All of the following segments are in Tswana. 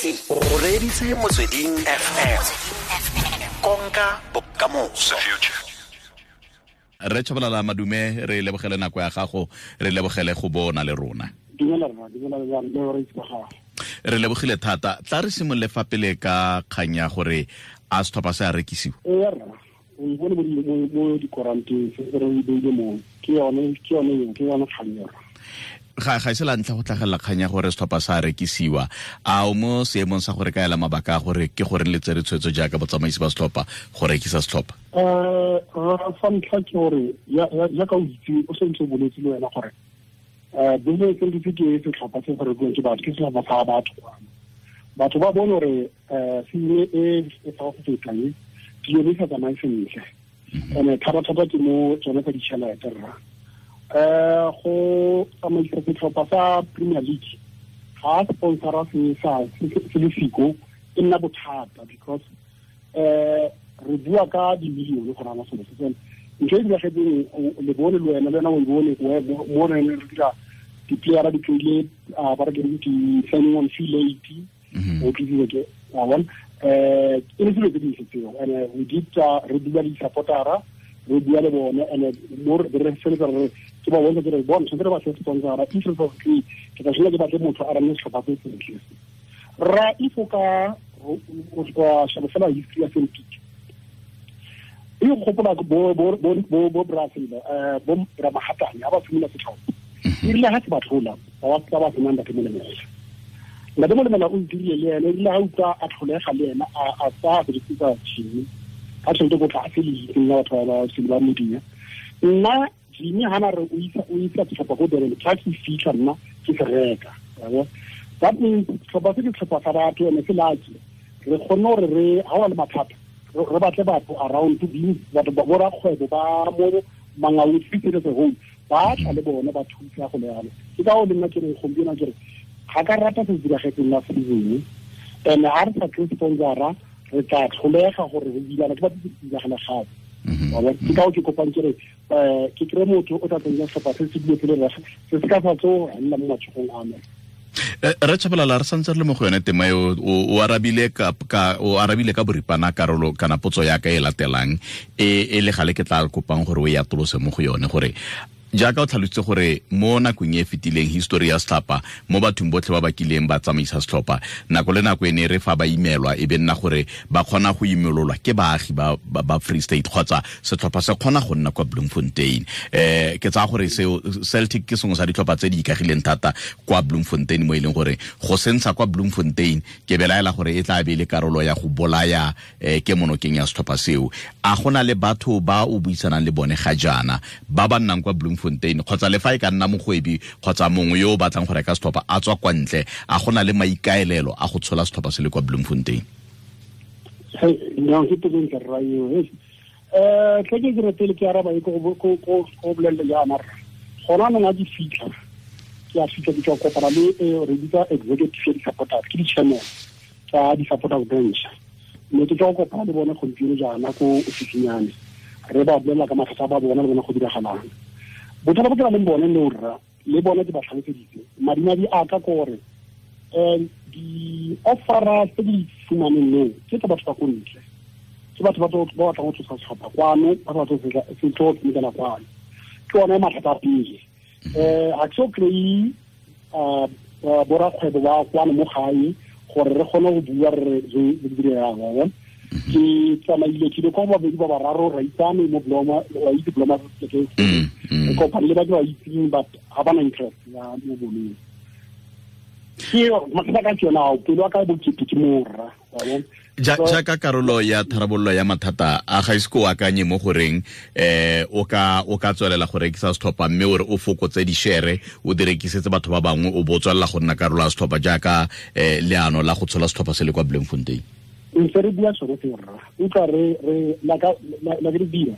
O reditse Motsweding FM. Konka bokamoso. Re Tshabalala, madume, re lebogele nako ya gago, re lebogele go bona le rona. Dumela rra, dumela le bareetsi ba gago. Re lebogile thata. Tla re simolole fa pele ka kgang ya gore a setlhopha se a rekisiwa. Ee rra, o e bone mo dikoranteng se re e beile mo, ke yone eo, ke yone kgang eo. Ga e se la ntlha go tlhagelela kgang ya gore setlhopha sa rekisiwa. A o mo seemong sa gore ka ela mabaka a gore ke gore le tsere tshwetso jaaka botsamaisi ba setlhopha go rekisa setlhopha? Sa ntlha ke gore jaaka o itse, o sentse o boletse le wena gore business entity ke setlhopha se se rekiwang ke batho, ke setlhopha sa batho kwano. Batho ba bone gore season e e fa go feta e dilo di sa tsamaye sentle, and thata-thata ke mo tsone tsa ditšhelete rra. Go tsamaisa setlhopha sa Premier League ga sponsora se sa se le siko e nna bothata, because re bua ka di-million go rana selo se seno. Ntho e diragetseng le bone le wena, le wena o e bone mo re ne re dira di-playera di tlile, ba re ke di-signing on fee late, o tlisitse ke wa bona, e le selo tse dintle tseo. And we did, re bua le di-supportera, re bua le bone, and mo re feletsa re ke ba bontsha ke re bona tshwanetse re batle sponsora. If re sa kry, ke tla tshwanela ke batle motho a rane setlhopha se sentle se. Rra, if o ka o sheba fela history ya Celtic, e gopola bo Brazil, bo Ramahatane ha ba simolola setlhopha, e rile ha se ba tlhola, ba ba senang Ntate Molemela. Ntate Molemela o dirile le ene, e rile ha utlwa a tlholega le ena, a tsaya berekisa Jimmy, ka tšhelete ko tlase le itseng ya batho ba ba ba media. Nna Jimmy ha na re o isa setlhopha ko Durban, tla ke fitlha nna ke se reka. That means setlhopha se ke setlhopha sa batho, ene se lucky. Re kgonne gore re ha wa le mathata, re batle batho around to be batho ba borakgwebo ba mo Mangaung City as a whole, ba tla le bone ba thusa go le yalo. Ke ka o le nna ke reng gompieno ke re ga ka rata se diragetseng last season, and ha re sa kry sponsora re tla tlholega gore re bilana ke batho se diragala gape. Ke ka o ke kopang ke re ke kry motho o tla tsenya setlhopha se se dilo se le rra, se se ka sa tso nna mo matshogong a me. Re Tshabalala, re santse re le mo go yone tema eo, o arabile ka boripana karolo kana potso ya ka e latelang e le gale ke tla kopang gore o e atolose mo go yone, gore jaaka o tlhalositse gore mo nakong e fetileng history ya setlhopha mo bathong botlhe ba ba kileng ba tsamaisa setlhopha, nako le nako e ne re fa ba imelwa e be nna gore ba kgona go imololwa ke baagi ba Free State kgotsa setlhopha se kgona go nna kwa Bloemfontein. Ke tsaya gore seo Celtic ke sengwe sa ditlhopha tse di ikagileng thata kwa Bloemfontein, mo e leng gore go sentsha kwa Bloemfontein ke belaela gore e tla be le karolo ya go bolaya ke monokeng ya setlhopha seo. A gona le batho ba o buisanang le bone ga jaana ba ba nnang kwa Bloemfontein kgotsa le fa e ka nna mogwebi kgotsa mongwe yo o batlang go reka setlhopha a tswa kwa ntle, a gona le maikaelelo a go tshola setlhopha se le kwa Bloemfontein? No, ke potso ntle rra eo. Tle ke dire pele ke araba e go bolelele jaana rra. Gona anong a di fitlha, ke a fitlha ke tswa kopana le re bitsa executive ya di-supporters, ke di-chairman tsa di-supporters branch. Mme ke tswa kopana le bone gompieno jaana ko ofising ya me, re ba bolelela ka mathata a ba bona le bone go diragalang. Bothata bo ke nang le bone le rra, le bone ke ba tlhaloseditse. Madimadi a ka ke gore di-offera tse di fumaneng leo ke tsa batho ba ko ntle, ke batho ba batlang go tlosa setlhopha kwano, ba batla se tlo tshamekela kwano. Ke one mathata a pele. Ga ke so kry-e borakgwebo ba kwano mo gae gore re kgone go bua re dire yang, wa bona. Ke tsamaile ke ile kwa babedi ba bararo, ra itsane mo Bloma, wa itse Bloma ke re kopane le batho ba itseng, but ga ba na interest ya mo boleng. Ke mathata ka ke yona ao, pelo ya ka e bokete ke mo rra, wa bona. Jaaka karolo ya tharabololo ya mathata a ga ise ko akanye mo goreng o ka tswelela go rekisa setlhopha mme o re o fokotse di-share o di rekisetse batho ba bangwe, o bo tswelela go nna karolo ya setlhopha jaaka leano la go tshola setlhopha se le kwa Bloemfontein? Ntse re bua sone seo rra, utlwa re la ke re dira.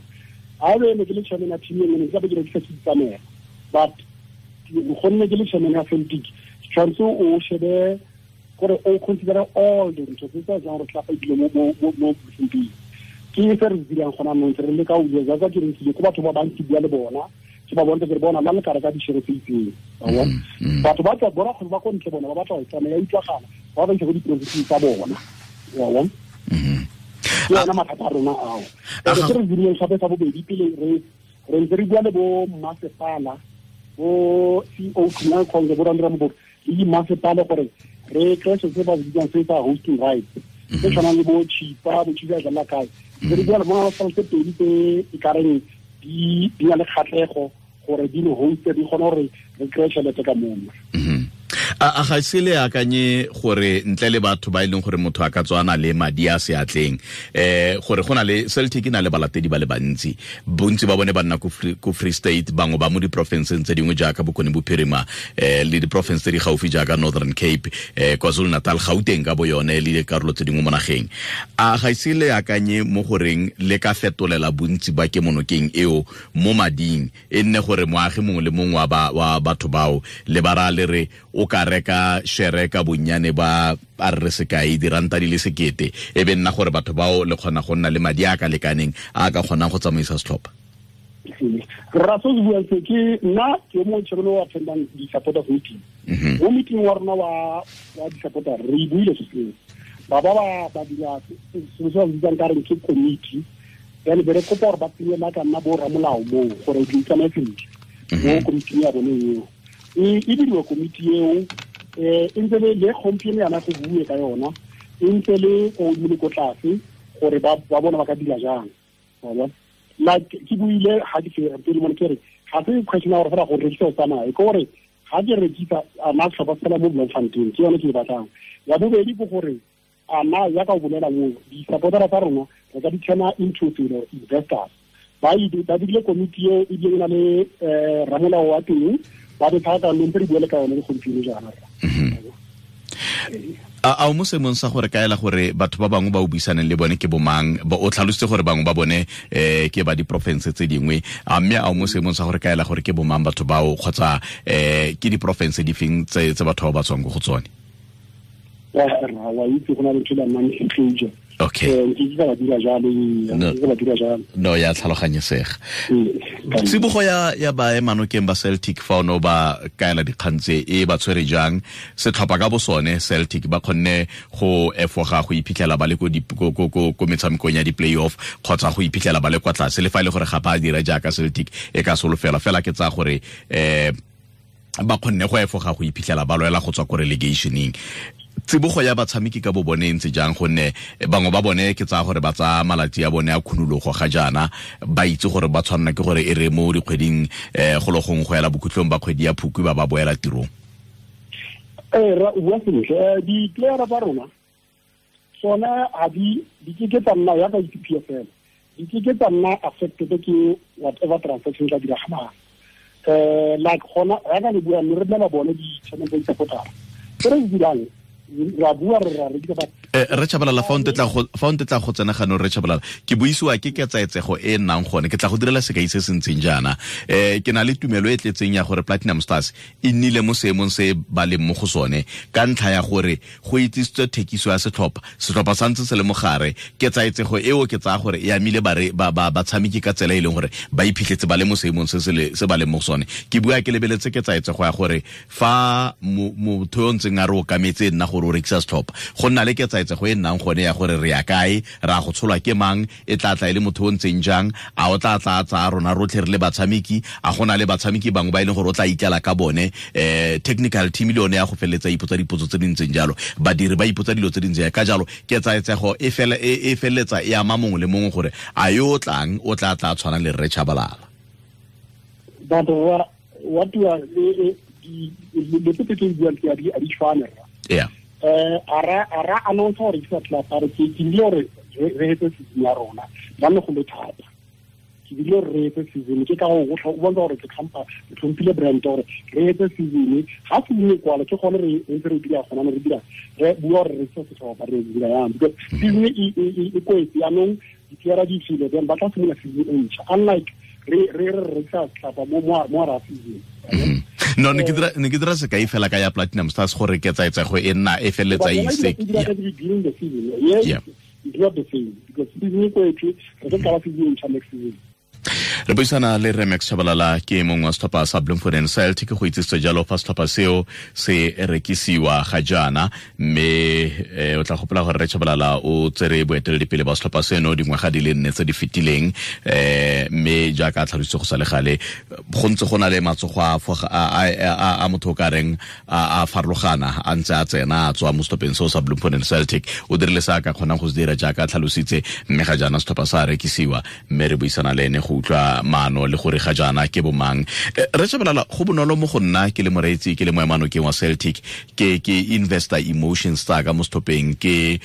Ha be ne ke le chairman ya team e nngwe, ne ke tla be ke rekisa ke itsamela, but gonne ke le chairman ya Celtic, tshwanetse o shebe gore o consider all the ntho tse tsa jang gore tlapa dilo mo Bloemfontein. Ke se re dirang gona anong, re leka go bua jaaka ke re ntse ko batho ba bantsi bua le bona, ke ba bontsha ke re bona la le ka reka di-share tse itseng, wa bona. Batho ba tswa borakgwebo ba ko ntle bona ba batla go tsamaya, ya utlwagala. ba ba isa ko diporofenseng tsa bona. Wa bona? Ke yona mathata a rona ao. Se re dirileng gape sa bobedi pele re ntse re bua le bo mmasepala, bo CEO Khumalo Khonge, bo Randra Moboko le dimmasepala gore re kry se se ba bitsang se sa hosting rights, se tshwanang le bo Chipa, bo Chipa jala kae. Re bua le bona ba tse pedi tse e ka reng di na le kgatlhego gore di re hoste, di kgone gore re kry tšhelete ka mona. A ga se le akanye gore ntle le batho ba e leng gore motho a ka tswana le madi a seatleng, gore go na le Celtic e na le balatedi ba le bantsi, bontsi ba bone ba nna ko Free State, bangwe ba mo diporofenseng tse dingwe jaaka Bokone Bophirima, le diporofense tse di gaufi jaaka Northern Cape, KwaZulu-Natal, Gauteng ka bo yone le dikarolo tse dingwe mo nageng. A ga se le akanye mo goreng le ka fetolela bontsi ba kemonokeng eo mo mading, e nne gore moagi mongwe le mongwe wa batho bao le ba ra le re o ka reka shere ka bonnyane ba a re sekai diranta di le 1,000, e be nna gore batho bao le kgona go nna le madi a ka lekaneng a ka kgonang go tsamaisa setlhopha? Rra, se se buang se ke nna ke mo chairman wa attendang di-supporters meeting. Mo meeting wa rona wa di-supporter re buile se seo. Ba ba dira se se ba bitsang ka reng ke committee, then be re kopa gore ba tsenye ba ka nna bo ramolao moo gore di tsamaye sentle mo committee ya bone eo. E diriwa komiti eo, e ntse le gompieno yana go bue ka yona, e ntse le ko godimo le ko tlase gore ba bona ba ka dira jang. Like ke buile ga ke pele mone ke re ga se question ya gore fela go rekisa o tsamaye, ke gore ga ke rekisa a na setlhopha fela mo Bloemfontein, ke yone ke e batlang. Ya bobedi ke gore a na ya ka o bolela moo di-supportera tsa rona re ka di turna into selo investors. Ba dirile komiti eo ebile e na le ramolao wa teng, ba be thata mme re buele ka yone le gompieno jaana. A o mo seemong sa gore kaela gore batho ba bangwe ba o buisaneng le bone ke bomang? O tlhalositse gore bangwe ba bone ke ba diporofense tse dingwe, a mme a o mo seemong sa gore kaela gore ke bomang batho bao, kgotsa ke diporofense di feng tse batho bao ba tswang ko go tsone? Wa itse go na le ntho e non-disclosure. Okay. No, ya tlhaloganyesega. Tsibogo ya baemanokeng ba Celtic fa ono ba kaela dikgang tse e ba tshwere jang? Setlhopha ka bo sone Celtic ba kgonne go efoga go iphitlhela ba le ko metshamekong ya di-playoff, kgotsa go iphitlhela ba le kwa tlase, le fa e le gore ga ba dira jaaka Celtic e ka solofela fela, ke tsaya gore ba kgonne go efoga go iphitlhela ba lwela go tswa ko relegationeng. Tsibogo ya batshameki ka bo bone e ntse jang? Gonne bangwe ba bone ke tsaya gore ba tsaya malatsi a bone a khunologo ga jaana, ba itse gore ba tshwanela ke gore e re mo dikgweding go le gongwe go ela bokhutlong ba kgwedi ya Phukwi ba ba boela tirong. Ra o bua sentle. Di-playera tsa rona tsone ga di ke tsa nna yaka di-P F L, di ke tsa nna affected ke whatever transaction tla diragalang. Like gona yaka le bua mme re bolela bone di-chairman tsa di-supportera se re di dirang, ra bua re ra rekisa ba. Re Tshabalala, fa o ntetla go tsena gano, re Tshabalala, ke buisiwa ke ketsaetsego e nnang gone, ke tla go direla sekai se se ntseng jaana. Ke na le tumelo e tletseng ya gore Platinum Stars e nnile mo seemong se ba leng mo go sone ka ntlha ya gore go itsisitswe thekiso ya setlhopha, setlhopha sa ntse se le mogare. Ketsaetsego eo ke tsaya gore e amile batshameki ka tsela e leng gore ba iphitlhetse ba le mo seemong se ba leng mo go sone. Ke bua ke lebeletse ketsaetsego ya gore fa motho yo ntseng a re okametse nna gore o rekisa setlhopha, go nna le ketsaetsego e nnang gone ya gore re ya kae, ra go tsholwa ke mang, e tla tla e le motho o ntseng jang, a o tla tla tsaya rona rotlhe re le batshameki, a gona le batshameki bangwe ba e leng gore o tla ikela ka bone. Technical team le yone ya go feleletsa ipotsa dipotso tse di ntseng jalo, badiri ba ipotsa dilo tse di ntseng ka jalo. Ketsaetsego e feleletsa e ama mongwe le mongwe gore a yo o tlang o tla tla tshwana le Rre Tshabalala. But what you are le tse ke buang ke a di tshwana. Yeah. Ara announce gore ke tla tla re ke ile gore re hetse season ya rona ba ne go le thata. Ke bile re hetse season ke ka go o bontsha gore ke tlhompha ke tlhomphile brand gore re hetse season ga season e kwala ke gone re ntse re dira gona re dira re bua gore re se setlhopha re dira yang because season e kwetse yanong dipiara di file then ba tla simolola season e ntšha unlike re re re sa tlhapa mo mo ra season. No, ne ke dira sekai fela ka ya Platinum Stars gore ketsaetsego e nna e feleletsa e ise. It's not the same because season e kwetse re ka qala season e ntšha next season. Re buisana le Rre Max Tshabalala, ke mongwe wa setlhopha sa Bloemfontein Celtic, go itsisitse jalo fa setlhopha seo se rekisiwa ga jaana, mme o tla gopola gore Rre Tshabalala o tsere boeteledipele ba setlhopha seno dingwaga di le 4 tse di fetileng, mme jaaka a tlhalositse go sa le gale, go ntse go na le matsogo a motho o ka reng a farologana a ntse a tsena a tswa mo setlhopheng seo sa Bloemfontein Celtic. O dirile se a ka kgonang go se dira jaaka a tlhalositse, mme ga jaana setlhopha sa rekisiwa, mme re buisana le ene go utlwa maano le gore ga jaana ke bomang. Rre Tshabalala, go bonolo mo go nna ke le moreetsi, ke le moemanokeng wa Celtic, ke investor emotions tsa ka mo setlhopheng, ke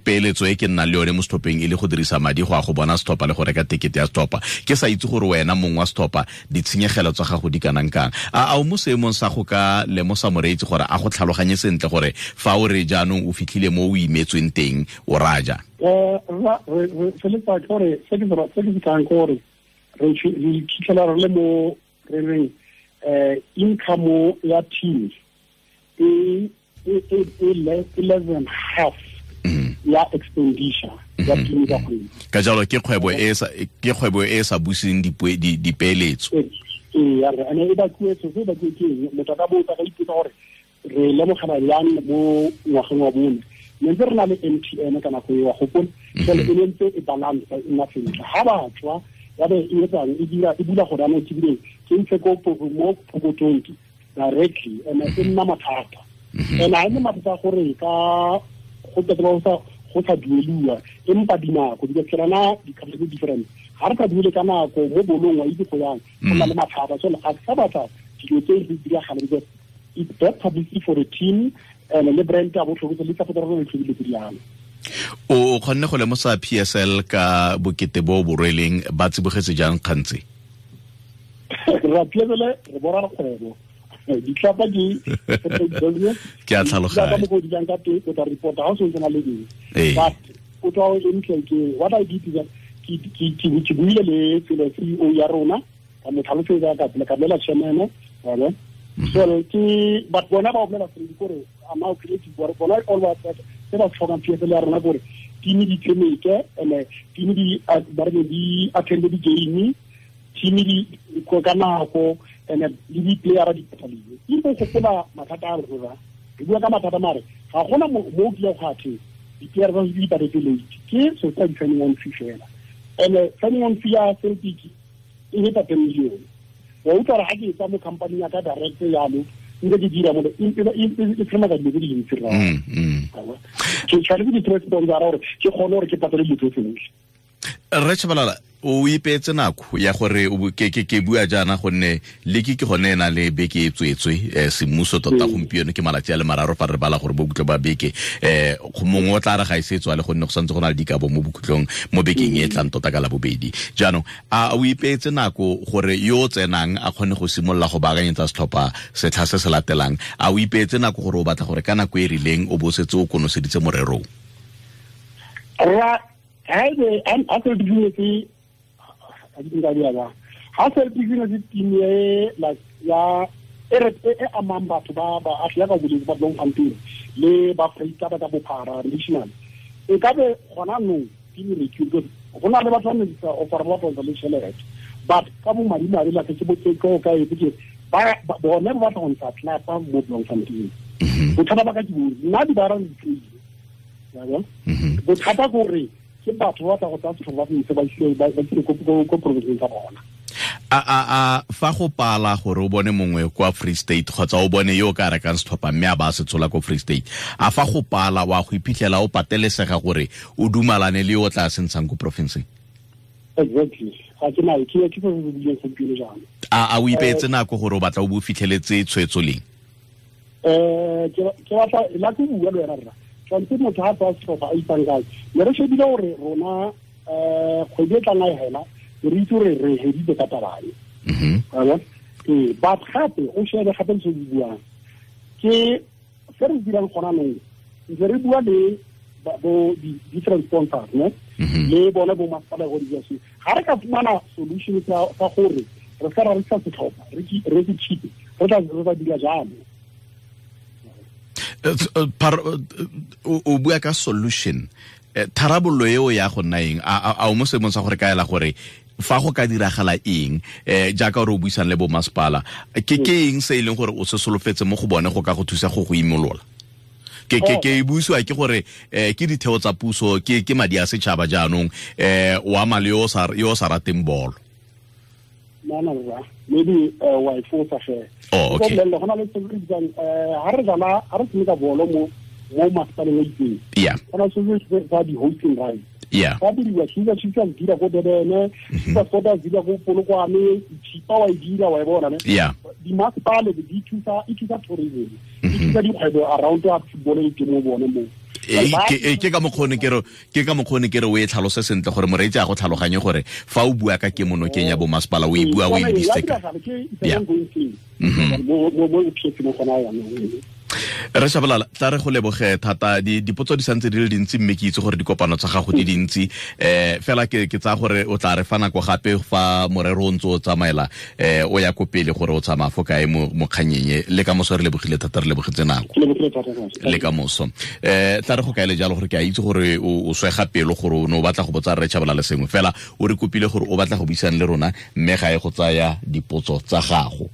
peeletso e ke nnang le yone mo setlhopheng e le go dirisa madi go ya go bona setlhopha le go reka tekete ya setlhopha. Ke sa itse gore wena mong wa setlhopha ditshenyegelo tsa gago di kanang kang. A o mo seemong sa go ka lemosa moreetsi gore a go tlhaloganye sentle gore fa o re jaanong o fitlhile mo o imetsweng teng o raja? Re feletsa ke gore se ke se kang ke gore re fitlhela re le mo re reng income ya team e less than half ya expenditure ya team ka kgwedi. Ka jalo ke kgwebo e sa buseng dipeeletso. Ee, ene e bakuwe se bakuwe ke eng? Motho a ka botsa ka ipotsa gore re lemogela yang mo ngwageng wa bone. Ne ntse re na le MTN ka nako eo, wa gopola? Jwale e ne ntse e balance e nna sentle. Ha ba tswa ya be e etsang e dira e bula gore anong ke bile ke ntshe ko mo pokotong directly, and e nna mathata. And ha e nne mathata gore ka go tla go sa dueliwa, empa dinako di ka na di-couple tse different. Ha re ka duele ka nako mo bolong wa itse go yang go na le mathata. So ga sa batla dilo tse di diragala because it's bad publicity for the team and le brand ya botlhokwa le tsa go dira le tse di yang. O kgonne go lemosa PSL ka bokete bo bo rweleng, ba tsibogetse jang kgantse? Ra PSL re bora kgwebo. Ditlhopha di ke a tlhaloganya. Ba go di jang ka teng, o tla report ha o sentse na le eng. But o tla o ntle ke what I did is that ke buile le tsela CEO ya rona, ka mo tlhalosetsa ka pele ka bolela chairman, wa bona. So ke but bona ba bolela gore gore ama creative bona all what se ba tlhokang PSL ya rona gore team di tshameke, and team di ba re di attend di game, team di ko ka nako, and le di player di pataliwe. E go gopola mathata a rona, re bua ka mathata mare ga gona mo ke ya go athe di player ba di patetse late, ke so tsa di signing on fee fela. And signing on fee ya Celtic e heta 10 million. Wa utlwa gore ha ke etsa mo company ya ka direct yalo nke ke dira mo e tlhoma ka dilo tse dintsi rra. Ke tshwanetse ke dire sponsor gore ke kgone gore ke patale dilo tse tsotlhe. Rre Tshabalala, o ipeetse nako ya gore ke bua jaana gonne leke ke gone e na le beke e tswetswe semmuso tota gompieno ke malatsi a le mararo fa re bala gore bokhutlho ba beke, mongwe o tla re ga e se tswa le gonne go santse go na le dikabo mo bokhutlong mo bekeng e tlang tota ka la bobedi. Jaanong a o ipeetse nako gore yo o tsenang a kgone go simolola go baakanyetsa setlhopha setlha se se latelang? A o ipeetse nako gore o batla gore ka nako e rileng o bo setse o konoseditse morerong? Ra ha se business ha se business team e like ya e amang batho ba ba ya ka boleng ba Bloemfontein le ba Freita ba ka bophara national, e ka be gona no team re ke go na le batho ba ne sa offer ba ba le tšhelete, but ka bo madi madi la ke botse ko ka e ke ba bone ba batla go ntsha tlapa mo Bloemfontein. Bothata ba ka ke nna di ba ra di bothata gore ke batho ba tla go tsaya setlhopha ba se ba ise ko provinceng tsa bona. A fa go pala gore o bone mongwe kwa Free State kgotsa o bone yo o ka rekang setlhopha mme a ba se tshola ko Free State, a fa go pala wa go iphitlhela o patelesega gore o dumalane le yo o tla se ntshang ko provinceng? Exactly. Ga ke na ke se se buileng gompieno jaana. A o ipeetse nako gore o batla o bo fitlheletse tshwetso leng? Ke batla la ke bua le wena rra. Tshwanetse motho ha tsaya setlhopha a itsang kae. Ne re shebile gore rona kgwedi e tlang a e hela, re itse gore re heditse ka taba e. Ee, but gape o shebe gape se se buang. Ke se re dirang gona nong, ntse re bua le bo di-different sponsors, ne? Le bone bo masepala go di se. Ga re ka fumana solution sa gore re ska ra rekisa setlhopha, re se cheap, re tla dira jalo. O bua ka solution, tharabollo eo ya go nna eng? A o mo seemong sa gore kaela gore Fa go ka diragala eng, jaaka gore o buisang le bo masepala, ke eng se e leng gore o se solofetse mo go bone go ka go thusa go imolola? Ke buisiwa ke gore ke ditheo tsa puso, ke madi a setšhaba jaanong, o ama le yo o sa rateng bolo. No, maybe wa e fosa ge. Oh, okay. Go na le se re bitsang ha re dlala, ha re tshameka bolo mo masepaleng a itseng. Yeah. Go na se se sa di hosting rights. Yeah. Fa diriwa Kaizer Chiefs dira ko Durban, Super Sport dira ko Polokwane, Chipa wa e dira wa e bona ne. Yeah. Di masepale di thusa, e thusa tourism. E thusa dikgwebo around ya football e ke mo bone mo. Ke ka mokgone ke re o e tlhalose sentle gore moreetsi a go tlhaloganye gore fa o bua ka kemonokeng ya bo masepala o e bua o e lebisitse ka. Yeah. Re Shabalala, tla re go leboge thata. Dipotso di santse di le dintsi, mme ke itse gore dikopano tsa gago di dintsi, fela ke tsaya gore o tla re fa nako gape fa morero o ntse o tsamaela, o ya ko pele gore o tsamaya fo kae mo kganyeng. Le ka moso re lebogile thata, re lebogetse nako le ka moso. Tla re go kaele jalo gore ke a itse gore o swega pelo gore o ne o batla go botsa Rre Shabalala sengwe, fela o re kopile gore o batla go buisana le rona, mme ga e go tsaya dipotso tsa gago.